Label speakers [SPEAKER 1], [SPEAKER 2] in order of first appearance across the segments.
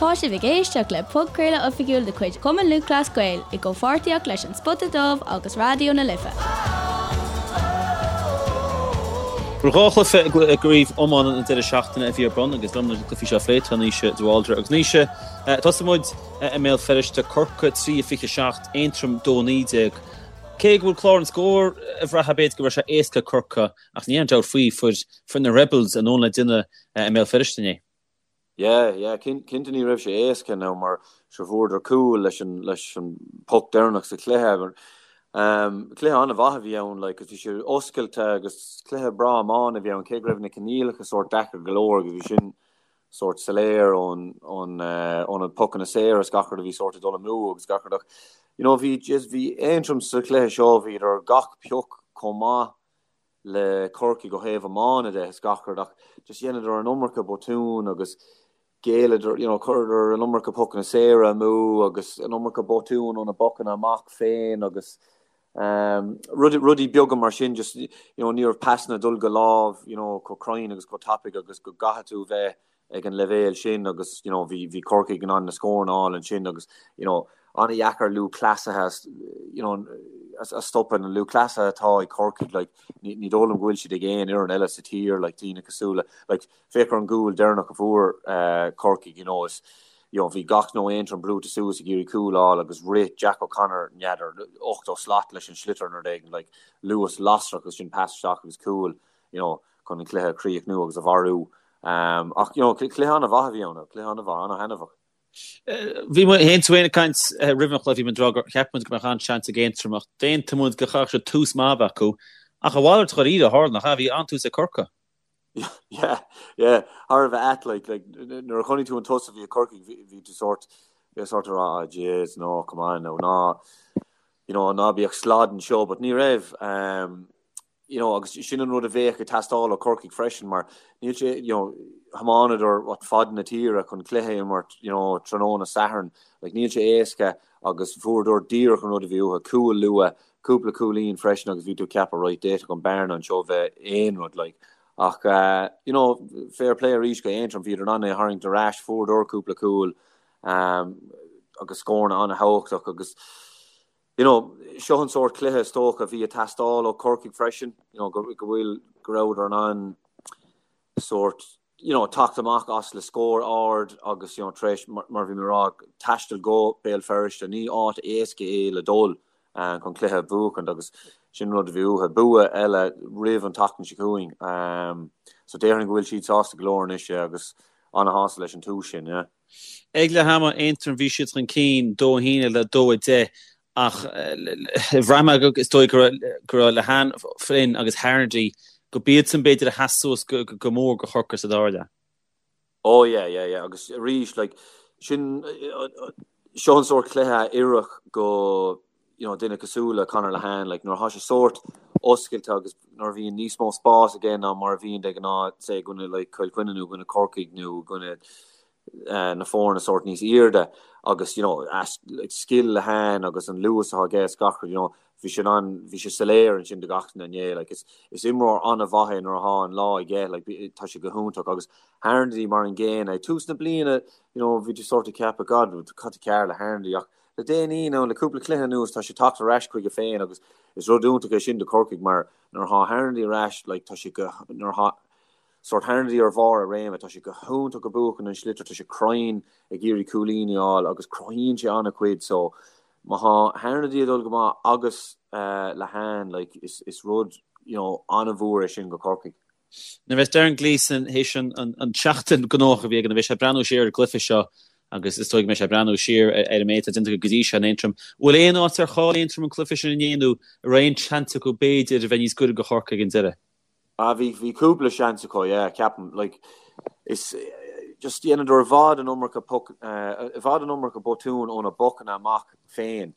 [SPEAKER 1] Tá sibh ag éisteacht le podchraoladh oifigiúil de chuid Chumann Lúthchleas Gael i gcomhpháirtíocht leis An Spota Dubh agus Raidió na Life.
[SPEAKER 2] Bhuel, 2 chluiche i gcraobh iomána an deireadh seachtaine a bhí ar bun agus liom leis na cluichí seo a phlé tá Naoise de Bhaldraithe. Agus Naoise, tosóidh muid i mBéal Feirste, Corcaigh 3-27, Aontroim 2-19. Cé go bhfuil clár an scóir ag brath b'fhéidir go raibh sé éasca ag Corcaigh ach ní aon dabht faoi, fuair fuair na Rebels a ndóthain le déanamh i mBéal Feirste inné.
[SPEAKER 3] Yeah, yeah, cinnte ní raibh sé éasca now mar sure fuaireadar cúl leis an leis an poc deireanach sa chluiche. Um, cluiche an-mhaith a bhí ann, like, bhí sé oscailte agus cluiche breá iomána a bhí ann, cé go raibh na coinníollacha sórt deacair go leor agus bhí sin sórt soiléir ón ón uh, ó na pocanna saora is gach rud a bhí sórt ag dul amú agus gach rud ach you know, bhí just bhí Aontroim sa chluiche seo bhíodar gach pioc chomh maith le Corcaigh ó thaobh iomána de is gach rud ach just dheineadar an iomarca botún agus ghéilleadar, you know, chuireadar an iomarca pocanna saora amú agus an iomarca botún ó na bocanna amach féin agus um, rudaí beaga mar sin just, you know, ní raibh pasanna ag dul go lámh, you know, chomh cruinn agus chomh tapaidh agus go gcaithfidh tú bheith ag an leibhéal sin agus you know bhí bhí Corcaigh in ann na scóranna a fháil ansin agus you know an-dheacair lúthchleasaithe you know a stopadh na lúthchleasaithe atá ag Corcaigh like ní ní dóigh liom go bhfuil siad ag aon fhoireann eile sa tír like daoine cosúil le like féach ar an gcúl deireanach a fuair uh, Corcaigh you know is you know bhí gach duine ó Aontroim brúite suas ag iarraidh cúl a fháil agus rith Jack O'Connor n'fheadar 80 slat leis an sliotar nó rud éigin like luas lasrach agus sin pas isteach agus cúl you know, chun an cluiche a chríochnú agus a mharú. Ach, you know, cluiche an-mhaith a bhí ann, cluiche an-mhaith, an-thaitneamhach.
[SPEAKER 2] Bhí muid féin tú féin ag caint roimh an chluiche, bhí muid ag rá gur cheap muid go mbeadh an-seans ag Aontroim ach d'aontaigh muid go gcaithfeadh siad tús maith a bheith acu. Ach a mhalairt dháiríre a tharla, nach ea? Bhí an-tús ag Corcaigh.
[SPEAKER 3] Yeah, yeah, thar a bheith ait, like, like, nuair a chonaic tú an tús a bhí ag Corcaigh, bhí tú sórt, bhí sórt ag rá, ah, jeez, no, come on, no, ná, you know, ná bíodh slad anseo, but ní raibh, um, you know, agus sin an rud a bheadh ag teastáil ó Corcaigh freisin mar níl sé, you know, thiomáineadar what fad na tíre chun cluiche a imirt, you know, tráthnóna Sathairn, like níl sé éasca agus fuaireadar díreach an rud a bhí uathu, cúl luath, cúpla cúilín freisin agus bhí tú ag ceapadh right, d'fhéadfadh an bearna anseo bheith aon rud like. Ach uh, you know, fair play arís go Aontroim, bhíodar in ann é a tharraingt ar ais, fuaireadar cúpla cúl um, agus scóranna an-thábhachtach agus You know, seo an sórt cluiche is dócha a bhí ag teastáil ó Corcaigh freisin, you know, go, go bhfuil, go rabhadar in ann sórt, you know, teacht amach as le scór ard agus, you know, tar éis, mar, mar bhí mé ag rá, taisteal go Béal Feirste, ní áit éasca é le dul uh, chun cluiche a bhuachaint agus sin rud a bhí uathu. Bua eile roimh an tseachtain seo chugainn. Um, so déarfainn go bhfuil siad sásta go leor anois agus ana-shásta leis an tús sin, yeah.
[SPEAKER 2] Ag leath ama, Aontroim, bhí siad chun cinn, 2-1 le 2-10, ach bhraith mé go, is dóigh go raibh Lehane, Flynn agus Harnedy, go b'iadsan b'fhéidir a sheas suas go mór go Chorcaigh sa dara leath.
[SPEAKER 3] Oh yeah, yeah, yeah, agus arís, like, sin, seo an sórt cluiche a oirfeadh go, you know, duine cosúil le Conor Lehane, like, nuair atá sé sórt oscailte agus nuair a bhíonn níos mó spás aige ná mar a bhíonn de ghnáth, say, i gcoinne, like, Cill Chainnigh nó i gcoinne Corcaigh nó i gcoinne uh, na foirne sórt níos airde agus, you know, as, like, scil Lehane agus an luas atá aige is gach rud, you know, bhí sé an, bhí sé soiléir ansin do gach duine inné, like, is, is imreoir an-mhaith é nuair atá an lá aige, like, tá sé go hiontach agus Harnedy mar an gcéanna, ag tús na bliana, you know, bhí tú sórt ag ceapadh, God, cad tá cearr le Harnedy ach Le déanaí, nó le cúpla cluiche anuas, tá sé tagtha ar ais chuige féin agus is rud iontach é sin do Chorcaigh mar nuair atá Harnedy ar ais, like, tá sé go, nuair atá sórt Harnedy ar bharr a réime, tá sé go hiontach ag buachan an sliotar, tá sé cruinn ag iarraidh cúilíní a fháil agus cruthaíonn sé an-chuid so má tá Harnedy ag dul go maith agus uh, Lehane, like, is, is rud, you know, an-mhór é sin go Corcaigh.
[SPEAKER 2] Nuair a bheas Darren Gleeson théis an tseachtain gnóthach a bhí aige, nuair a bheidh sé ag breathnú siar ar an gcluiche seo agus is dóigh go mbeidh sé ag breathnú siar ar an méid atá déanta acu go dtí seo in Aontroim, bhfuil aon áit ar chaill Aontroim an cluiche sin inné nó an raibh aon seans acu b'fhéidir a bheith níos gaire do Chorcaigh ag an deireadh?
[SPEAKER 3] Ah bhí, bhí cúpla seans acu, yeah, ceapaim. Like, is, just dheineadar i bhfad an iomarca puc, i bhfad an iomarca botún ó na bocanna amach féin.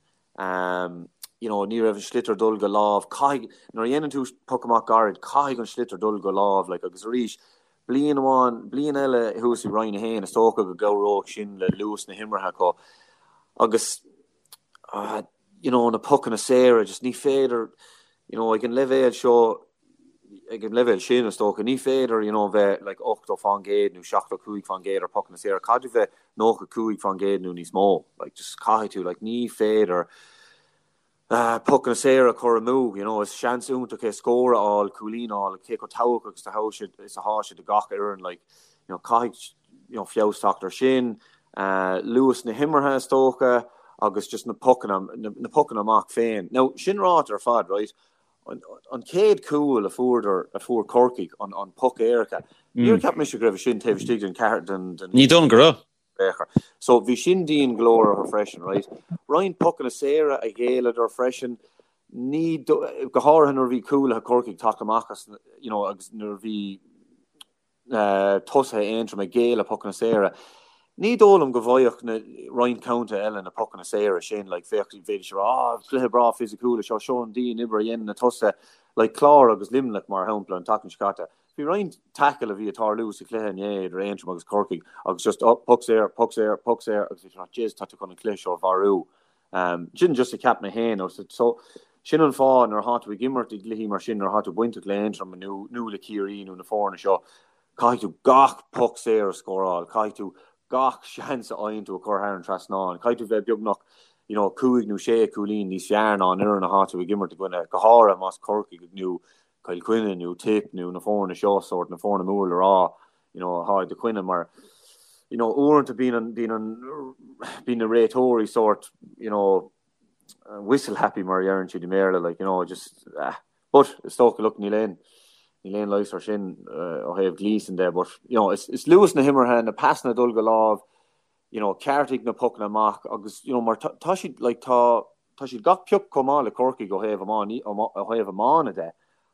[SPEAKER 3] You know, ní raibh an sliotar dul go lámh. Caithfidh, nuair a dhéanann tú poc amach gairid, caithfidh an sliotar dul go lámh, like, agus arís, bliain amháin, bliain eile thuas i Roinn 1, is dócha go gcabhródh sin le luas na himeartha acu. Agus, you know, na pocanna saora, just ní féidir, you know, ag an leibhéal seo. ag an leibhéal sin, is dócha, ní féidir, you know, bheith like 80% nó 75% ar pocanna saora, caithfidh tú bheith 95% nó níos mó, like just caithfidh tú, like ní féidir pocanna saora a chur amú, you know, is seans iontach é scór a fháil, cúilín a fháil, cé chomh tábhachtach is atá sé is atá sé do gach fhoireann, like, you know, caithfidh, you know, feabhas teacht ar sin, luas na himeartha is dócha agus just na pocanna, na pocanna amach féin. Now, sin ráite ar fad, right, an chéad cúl a fuaireadar, a fuair Corcaigh, an, an poc éirice, níor cheap mise go raibh sin taobh istigh den ceathair, den, den.
[SPEAKER 2] Ní dóigh liom go raibh.
[SPEAKER 3] So bhí sin dian go leor orthu freisin, right? Roinnt pocanna saora a ghéilleadar freisin, ní, go háirithe nuair a bhí cúlaithe Chorcaigh ag teacht amach as, you know, agus nuair a bhí tosaithe Aontroim ag géilleadh pocanna saora. Ní dóigh liom go bhfaigheadh na roinnt contaetha eile na pocanna saora sin, like, bheadh, bhféadfaidís a rá, ah, cluiche breá fisiciúil é seo, seo an dian-obair a dhéanann na tosaithe, like, Clár agus Luimneach, mar shampla, an tseachtain seo caite. Bhí roinnt tackle a bhí ag tarlú sa chluiche inné idir Aontroim agus Corcaigh agus just oh, puc saor, puc saor, puc saor agus bhí tú jeez tá tú chun an cluiche seo a mharú. Um, sin just a cheap mé féin. So, sin an fáth nuair atá tú ag imirt i gcluichí mar sin, nuair atá tú bainteach le Aontroim nó, nó le Ciarraí nó na foirne seo, caithfidh tú gach puc saor a scóráil, caithfidh tú gach seans a fhaigheann tú a chur thar an trasnán, caithfidh tú bheith beagnach you know, cúig nó sé cúilín níos fearr ná an fhoireann atá tú ag imirt i gcoinne, go háirithe más Corcaigh nó Cill Chainnigh nó Tip nó na foirne seo, sórt na foirne mór le rá, you know, atá i do choinne mar, you know, uaireanta bíonn an, bíonn an, bíonn na réiteoirí sórt, you know, whistle happy mar a deireann siad i mBéarla, like, you know, just, ah, but is dócha, look, níl aon, níl aon leigheas ar sin uh, ó thaobh Gleeson de, but, you know, is, is luas na himeartha, na pasanna ag dul go lámh, you know, ceartaigh na pocanna amach agus, you know, mar tá, tá siad, like, tá, tá siad gach pioc chomh maith le Corcaigh ó thaobh iomána, ó thaobh iomána de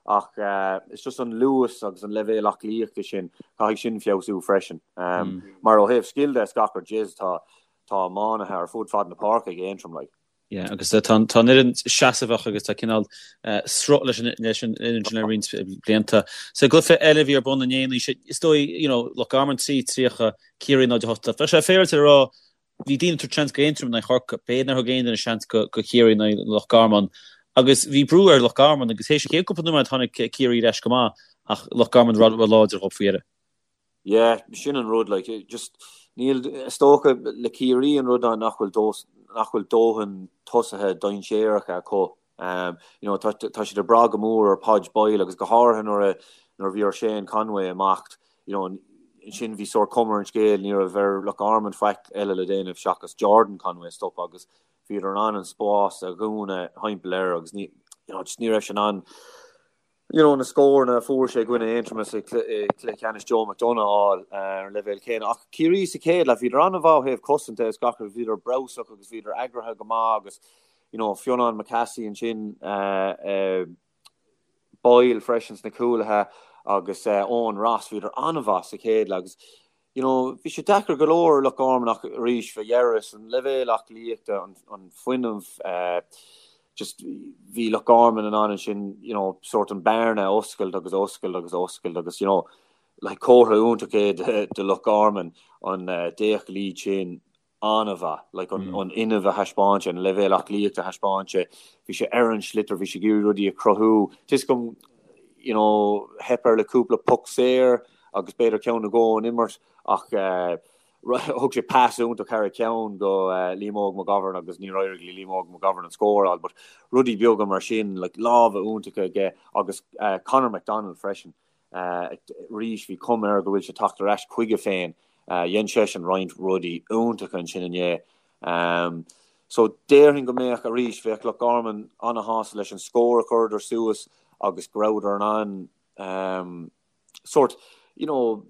[SPEAKER 3] ach it's just an luas agus an leibhéal aclaíochta sin, caithfidh sin feabhsú freisin. Mar ó thaobh scil de is gach rud, jeez, tá, tá iománaithe ar fud fad na páirce ag Aontroim, like.
[SPEAKER 2] Yeah, agus tá an fhoireann seasmhach agus tá cineál sruth leis an leis an fhoireann sin le roinnt blianta. Sa gcluiche eile a bhí ar bun inné, is dóigh, you know, Loch Garman 3, 30, Ciarraí 0, 8. Bheadh sé féaráilte a rá, bhí daoine ag tabhairt seans go Aontroim in aghaidh Chorcaí, b'fhéidir nár thug aon duine seans go Ciarraí in aghaidh Loch Garman. Agus bhí brú ar Loch Garman agus théis an chéad cúpla nóiméad tháinig Ciarraí ar ais go maith ach Loch Garman ró-láidir dhóibh faoi dheireadh.
[SPEAKER 3] Yeah, sin an rud, like, just níl, is dócha le Ciarraí an rud ná nach bhfuil dó, nach bhfuil dóthain tosaithe dainséaracha acu. Um, you know, tá, tá siad ag brath go mór ar Podge Boyle agus go háirithe nuair a, nuair a bhí ar Shane Conway imeacht, you know, ansin bhí sórt cuma ar an scéal, ní raibh ar Loch Garman faic eile le déanamh seachas Jordan Conway a stopadh agus bhíodar in ann an spás a dhúnadh thimpeall air agus ní, you know, just ní raibh sé in ann you know, na scóranna a fuair sé i gcoinne Aontroma sa chluiche ceannais Joe McDonagh a fháil ar an leibhéal céanna. Ach Ciarraí sa chéad leath, bhíodar an-mhaith ó thaobh cosanta is gach rud, bhíodar breabhsach agus bhíodar eagraithe go maith agus, you know, Fionán McCassie ansin, Boyle freisin sna cúlaithe agus Eoin Ross, bhíodar an-mhaith sa chéad leath agus, you know, bhí sé deacair go leor ar Loch Garman ach arís, fá dheireadh, san leibhéal aclaíochta, an, an fuinneamh, eh, just bhí Loch Garman in ann ansin, you know, sórt an bearna a oscailt agus a oscailt agus a oscailt agus, you know, like comhartha iontach é de, de Loch Garman an eh, 10 lead sin an-mhaith, like an, an fhuinneamh a thaispeáin sé, an leibhéal aclaíochta a thaispeáin sé, bhí sé ar an sliotar, bhí sé ag iarraidh rudaí a chruthú. Tá 'fhios agam, you know, theip air le cúpla poc saor agus b'fhéidir ceann nó dhó ón imirt ach eh, thug sé pas iontach thar a cheann go eh, Liam Óg McGovern agus níor éirigh le Liam Óg McGovern an scór a fháil, but rudaí beaga mar sin, like lámha iontacha aige agus eh, Conor McDonald freisin. Arís, bhí cuma air go bhfuil sé ag teacht ar ais chuige féin. Dhein seisean roinnt rudaí iontacha ansin inné. So, déarfainn go mbeadh, arís, bheadh Loch Garman ana-shásta leis an scór a chuireadar suas agus go rabhadar in ann sórt, you know,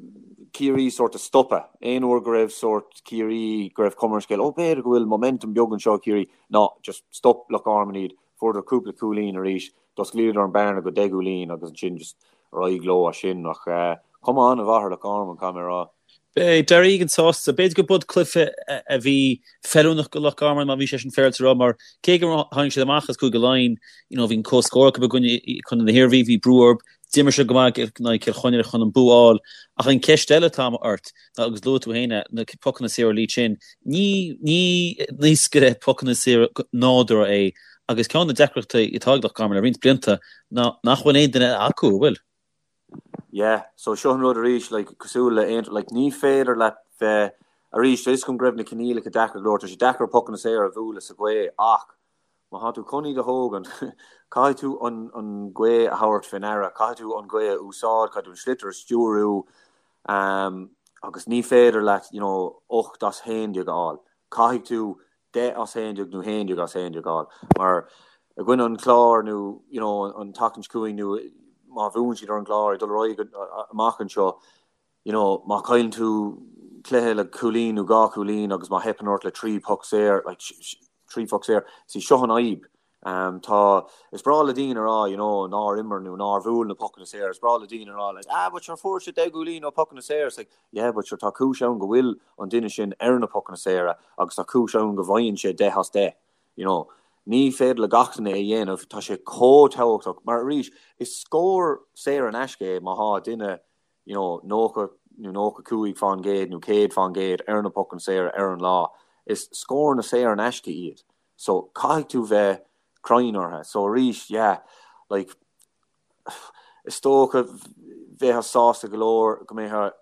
[SPEAKER 3] Ciarraí sórt a stopadh. Aon uair go raibh sórt Ciarraí, go raibh cuma ar an scéal, oh, b'fhéidir go bhfuil momentum beag anseo ag Ciarraí. No, just stop Loch Garman iad. Fuaireadar cúpla cúilín arís, d'osclaíodar an bearna go 10 gcúilín agus ansin just ar aghaidh leo as sin ach cuma an-mhaith ar Loch Garman, caithfidh mé a rá.
[SPEAKER 2] Beidh Darragh Egan sásta. B'fhéidir go b'shin cluiche a bhí feiliúnach do Loch Garman má bhí sé sin féaráilte a rá mar cé gur tháinig siad amach as Cúige Laighean, you know, bhí an comhscór acu i gcoinne Chontae na hIarmhí, bhí brú orthu, D'imir siad go maith in aghaidh Cill Chainnigh chun an bua a fháil. Ach an cheist eile atá ort, ná, agus luaigh tú féin é, na pocanna saora Lee Chin, ní, ní naoscaire pocanna saora nádúrtha é agus ceann de na deacrachtaí atá ag Loch Garman le roinnt blianta ná nach bhfuil aon duine acu, an bhfuil?
[SPEAKER 3] yeah. So seo an rud arís, like, cosúil le Aontroim, like, ní féidir leat bheith, arís, tá 'fhios agam go raibh na coinníollacha deacair go leor, tá sé deacair pocanna saora a bhualadh sa ghaoth ach má thá tú chun iad a thógaint, caithfidh tú an, an ghaoth a thabhairt fé ndeara, caithfidh tú an ghaoth a úsáid, caithfidh tú an sliotar a stiúriú, um, agus ní féidir leat, you know, 8 as 11 a fháil. Caithfidh tú 10 as 11 nó 11 as 11 a fháil mar i gcoinne an Chláir nó you know an tseachtain seo chugainn nó má bhuann siad ar an gClár ag dul ar aghaidh amach anseo you know má chailleann tú cluiche le cúilín nó dhá chúilín agus má theipeann ort le trí poc saor like trí phoc saor see seo an fhadhb Um, tá, is breá le daoine a rá, you know, nár imir nó nár bhuail na pocanna saora, is breá le daoine a rá, like, ah, but sure fuair siad 10 gcúilín ó pocanna saora, it's like, yeah, but sure tá cúis ann go bhfuil an duine sin ar na pocanna saora agus tá cúis ann go bhfaigheann sé 10 as 10, you know. Ní féidir le gach duine é a dhéanamh, tá sé chomh tábhachtach, mar arís, is scór saor in aisce é má thá duine, you know, 90 nó 95% nó 100% ar na pocanna saora ar an lá, is scóranna saor in aisce iad. So caithfidh tú bheith cruinn orthu. So arís, yeah, like, is dócha bheifeá sásta go leor go mbeifeá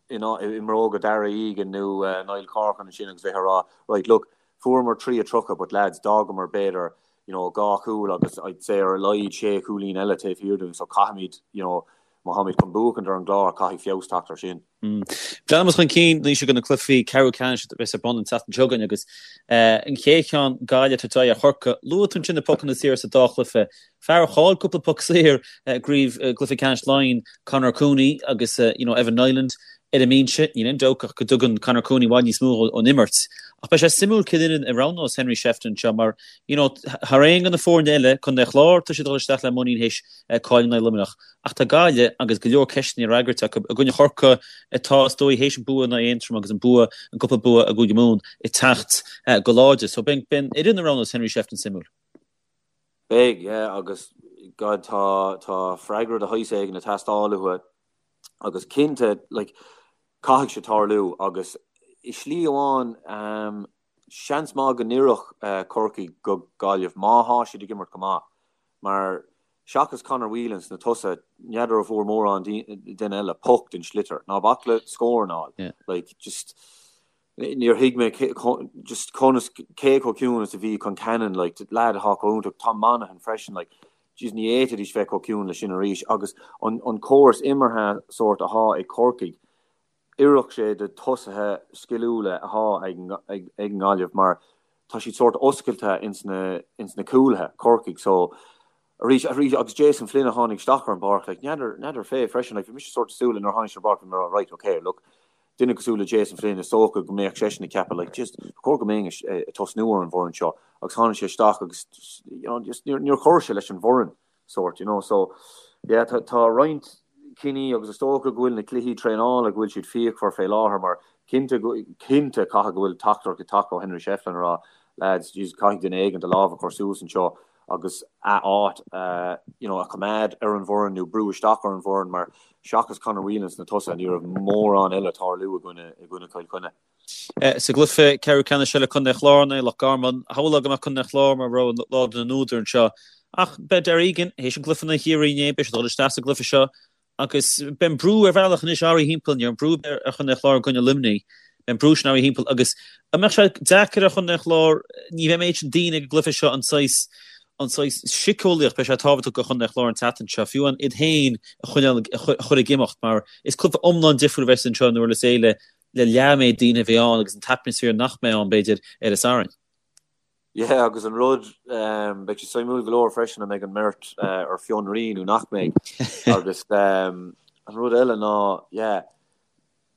[SPEAKER 3] i mbróga Darragh Egan nó Niall Corcoran ansin agus bheith ag rá, right, look, fuaireamar 3-30 but lads, d'fhágamar b'fhéidir, you know, dhá chúl agus I'd say ar a laghad sé chúilín eile taobh thiar dúinn so caithfimid, you know, má tháimid chun buachaint ar an gClár, caithfidh feabhas teacht ar sin.
[SPEAKER 2] Breathnaímis chun cinn anois go na cluichí ceathrú ceannais a bheas ar bun an tseachtain seo chugainn agus an chéad cheann, Gaillimh ag tabhairt aghaidh ar Chorcaigh. Luaigh tú ansin na pocanna saora sa dá chluiche. Fear a chaill cúpla poc saor i gcraobh i gcluiche ceannais Laighean, Conor Cooney agus you know Evan Niland ar an mbinse. Níl aon dabht ach go dtugann Conor Cooney i bhfad níos mó ón imirt. Ach beidh sé suimiúil cén fhoireann a roghnós Henry Shefflin anseo mar you know thar aon de na foirne eile, Contae an Chláir, tá siad ag dul isteach le muinín théis cailleadh in aghaidh Luimneach. Ach tá Gaillimh agus go leor ceisteanna le freagairt acu i gcoinne Chorcaí atá, is dóigh, théis an bua in aghaidh Aontroim agus an bua, an cúpla bua i gCúige Mumhan ag teacht go láidir. So beidh an fhoireann a roghnós Henry Shefflin suimiúil.
[SPEAKER 3] Beidh, yeah, agus God tá, tá freagra de shaghas éigin ag teastáil uathu agus cinnte, like, caithfidh sé tarlú agus i slí amháin, ehm, seans maith go n-oirfeadh Corcaigh go Gaillimh má thá siad ag imirt go maith mar Seachas Conor Whelan sna tosaithe, n'fheadar an bhfuair mórán duine eile poc den sliotar. Ná bac le scóranna a fháil. Like, just, níor thuig mé just conas, cé chomh ciúin is a bhí Concannon, like, lad atá chomh iontach, Tom Monaghan freisin, like, jeez, ní fhéadfaidís bheith chomh ciúin le sin arís. Agus an, an córas imeartha sórt athá ag Corcaigh, oirfeadh sé do tosaithe sciliúla athá ag an nGaillimh mar tá siad sórt oscailte ins na ins na cúlaithe, Corcaigh, so arís arís agus Jason Flynn a tháinig isteach ar an bpáirc like n'fheadar n'fheadar fé freisin like bhí mise sórt ag súil nuair a tháinig sé ar an bpáirc bhí mé ag rá right ok look duine cosúil le Jason Flynn is dócha go mbeadh seisean ag ceapadh like just ba chóir go mbeinn ag tosnú ar an bhfoireann seo agus tháinig sé isteach agus you know just níor níor chuir sé leis an bhfoireann sórt, you know. So, yeah, tá, tá roinnt cinní agus is dócha go bhfuil na cluichí traenála, go bhfuil siad fíochmhar fé láthair mar cinnte, cinnte caithfidh go bhfuil teachtaireacht ag teacht ó Henry Shefflin ag rá, lads, jeez, caithfidh duine éigin a lámh a chur suas anseo agus a áit, you know, a choimeád ar an bhfoireann nó brú isteach ar an bhfoireann mar seachas Conor Whelan sna tosaithe ní raibh mórán eile ag tarlú i gcoinne, i gcoinne Chill Chainnigh.
[SPEAKER 2] Sa gcluiche ceathrú ceannais eile, Contae an Chláir in aghaidh Loch Garman, shamhlófá go mbeadh Contae an Chláir mar rogha láidir na n-údar anseo. Ach beidh Darragh Egan, théis an gcluiche in aghaidh Chiarraí inné, beidh sé ag dul isteach sa gcluiche seo agus beidh an brú ar bhealach anois orthu thimpeall, ní raibh an brú ar Chontae an Chláir i gcoinne Luimnigh, beidh an brú sin orthu thimpeall agus an mbeadh sé deacair ar Chontae an Chláir, ní bheidh an méid sin daoine ag an gcluiche seo an saghas an saghas síceolaíocht, beidh sé tábhachtach do Chontae an Chláir an tseachtain seo, fiú amháin iad féin a choinneáil, a chur ag imeacht mar is cluiche iomlán difriúil a bheas anseo in Durlas Éile le leath an méid daoine a bheidh ann agus an t-atmaisféar nach mbeidh ann, b'fhéidir, ar an Satharn.
[SPEAKER 3] Yeah, agus an rud, beidh sé suimiúil go leor freisin an mbeidh an mbeirt ar fionraí nó nach mbeidh. Agus an rud eile ná, yeah,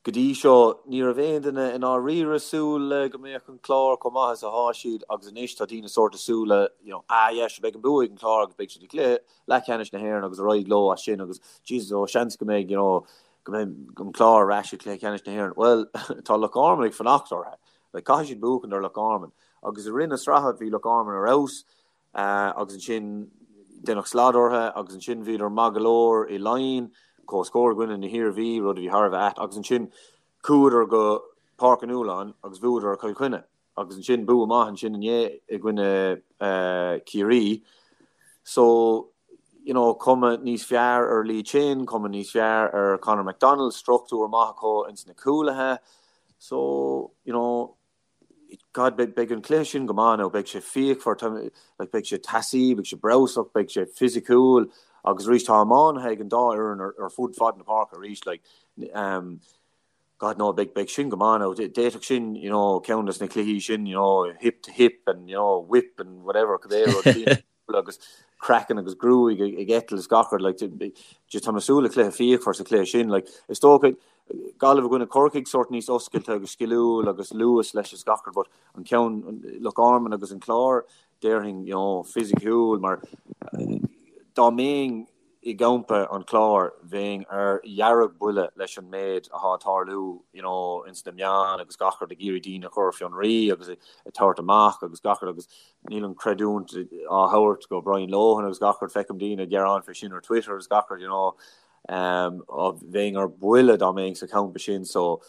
[SPEAKER 3] go dtí seo ní raibh aon duine i ndáiríre ag súil le go mbeadh an Clár chomh maith is athá siad agus anois tá daoine sórt ag súil le, you know, ah yeah, sure beidh an bua ag an Clár agus beidh siad i gcluiche leathcheannais na hÉireann agus ar aghaidh leo as sin agus Jesus, oh, seans go mbeidh, you know, go mbeidh an Clár ar ais i gcluiche ceannais na hÉireann. Bhuel, tá Loch Garman ag fanacht orthu. Like, caithfidh siad buachan ar Loch Garman. Agus i rith na sraithe bhí Loch Garman ar fheabhas agus ansin deineadh slad orthu agus ansin bhíodar maith go leor i Laighin, comhscór i gcoinne na hIarmhí, rud a bhí thar a bheith ait, agus ansin chuadar go Páirc an Fhualáin agus bhuadar ar Chill Chainnigh. Agus ansin bua maith ansin inné i gcoinne Ciarraí. So. you know, cuma níos fearr ar Lee Chin, cuma níos fearr ar Conor McDonald, struchtúr maith acu ins na cúlaithe. So, you know, God, beidh, beidh an cluiche sin go maith now, beidh sé fíochmhar, tá, like, beidh sé teasaí, beidh sé breabhsach, beidh sé fisiciúil agus arís tá iománaithe ag an dá fhoireann ar, ar fud fad na páirce arís, like, um, God no, beidh, beidh sin go maith now, d'fhéadfadh sin, you know, ceann des na cluichí sin, you know, hip to hip and, you know, whip and whatever, cibé rud. agus craiceann agus gruaig ag eitilt is gach rud, like, just tá mé ag súil le cluiche fíochmhar sa chluiche sin, like, is dócha Gaillimh i gcoinne Corcaigh sórt níos oscailte agus sciliúil agus luas leis is gach rud, but an ceann Loch Garman agus an Clár, déarfainn, you know, fisiciúil mar dá mbeinn i gcampa an Chláir, bheinn ar dheargbhuile leis an méid athá ag tarlú you know ins na meáin agus gach rud ag iarraidh daoine a chur ar fionraí agus ag tabhairt amach agus gach rud agus níl an creidiúint á thabhairt go Brian Lohan agus gach rud, feicim daoine ag gearán fé sin ar Twitter agus gach rud you know um, bheinn ar buile dá mbeinn sa champa sin so.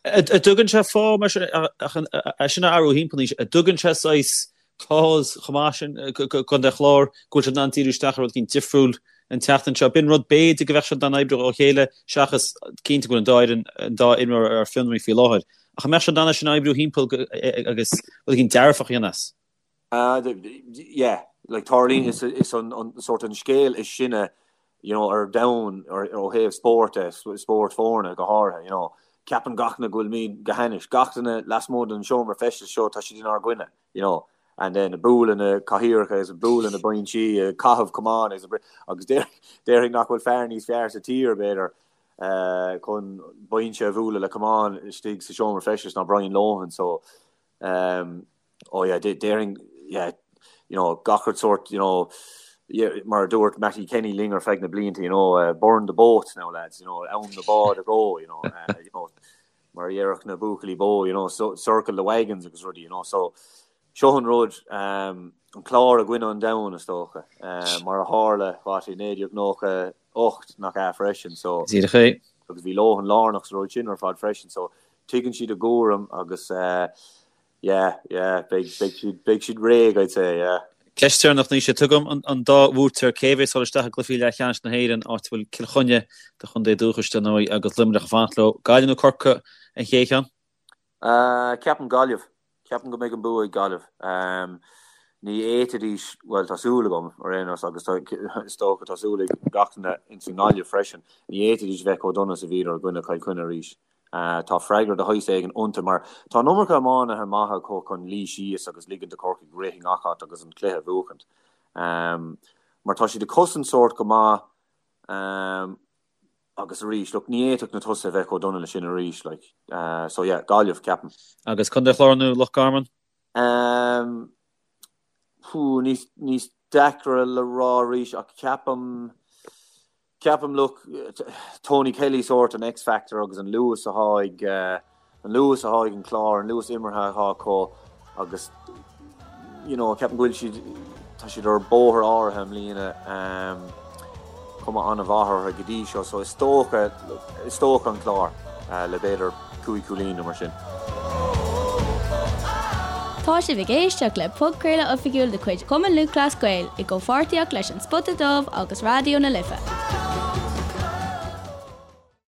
[SPEAKER 2] An dtugann sé fáth mar sin ach é sin a athrú thimpeall anois, an dtugann sé saghas cause chomh maith sin do Chontae an Chláir go bhfuil siad in ann díriú isteach ar rud éicint difriúil an tseachtain seo. B'in rud b'fhéidir go bheadh siad in ann oibriú ó chéile seachas cinnte go bhfuil an dá fhoireann, an dá imreoir ar fionraí faoi láthair. Ach an mbeadh siad in ann é sin a oibriú thimpeall agus rud éicint dearfach a dhéanamh as?
[SPEAKER 3] Yeah, like tarlaíonn is is an an sort an scéal is sine you know ar domhan ar ó thaobh spóirt de, spórt foirne go háirithe, you know. Ceapann gach duine go bhfuilimid go hainnis, gach duine lasmuigh den seomra feistis seo tá siad inár gcoinne. you know, and then ag bualadh na cathaoireacha is ag bualadh na binsí, ag caitheamh camáin agus agus déarfainn nach bhfuil fear níos fearr sa tír, b'fhéidir, chun binse a bhualadh le camán istigh sa seomra feistis ná Brian Lohan, so, um, oh yeah, déarfainn, yeah, you know, gach rud sort, you know, yeah, mar a dúirt Mattie Kenny linn ar feadh na blianta, you know, uh, burn the boats now lads, you know, am na báid a dhó, you know, uh, you know, mar a déarfadh na buachaillí bó, you know, so, circle the wagons agus rudaí, you know, so seo an rud, um, an Clár i gcoinne an domhain, is dócha, um, mar a tharla, what, i 1998 nach ea freisin, so,
[SPEAKER 2] Díreach é.
[SPEAKER 3] agus bhí Lohan lárnach sa rud sin ar fad freisin, so tuigeann siad a gcúram agus, uh, Yeah, yeah, beidh, beidh siad, beidh siad réidh, I'd say, yeah.
[SPEAKER 2] Ceist deireanach Naoise, tugaim an dá bhuaiteoir, cé a bheas ag dul isteach i gcluichí leathcheannais na hÉireann, áit a bhfuil Cill Chainnigh, do chontae dúchais, dar ndóigh, agus Luimneach ag fanacht leo. Gaillimh nó Corcaigh an chéad cheann?
[SPEAKER 3] Ceapaim Gaillimh. Ceapaim go mbeidh an bua ag Gaillimh. Ní fhéadfaidís, bhuel, tá súil agam, ar aon nós, agus tá, is dócha, tá súil ag gach duine ins an nGaillimh freisin, ní fhéadfaidís bheith chomh dona is a bhíodar i gcoinne Chill Chainnigh arís. Tá freagra de shaghas éigin iontu mar tá an iomarca iománaithe maithe acu chun luí síos agus ligean do Chorcaigh rith i ngach áit agus an cluiche a bhuachaint. Mar tá siad ag cosaint sórt go maith agus arís, look, ní fhéadfadh na tosaithe a bheith chomh dona le sin arís, like. So yeah, Gaillimh, ceapaim.
[SPEAKER 2] Agus Contae an Chláir nó Loch Garman?
[SPEAKER 3] Pú, níos deacra le rá arís ach ceapaim, Ceapaim, look, Tony Kelly sórt an X-factor agus an luas athá ag, an luas athá ag an Clár, an luas imeartha athá acu agus, you know, ceapaim go bhfuil siad, tá siad ar bóthar áirithe i mbliana, cuma an-mhaith orthu go dtí seo, so is dócha, is dócha an Clár le b'fhéidir 5 cúilín nó mar sin.
[SPEAKER 1] Tá sibh ag éisteacht le podchraoladh oifigiúil de chuid Chumann Lúthchleas Gael i gcomhpháirtíocht leis An Spota Dubh agus Raidió na Life.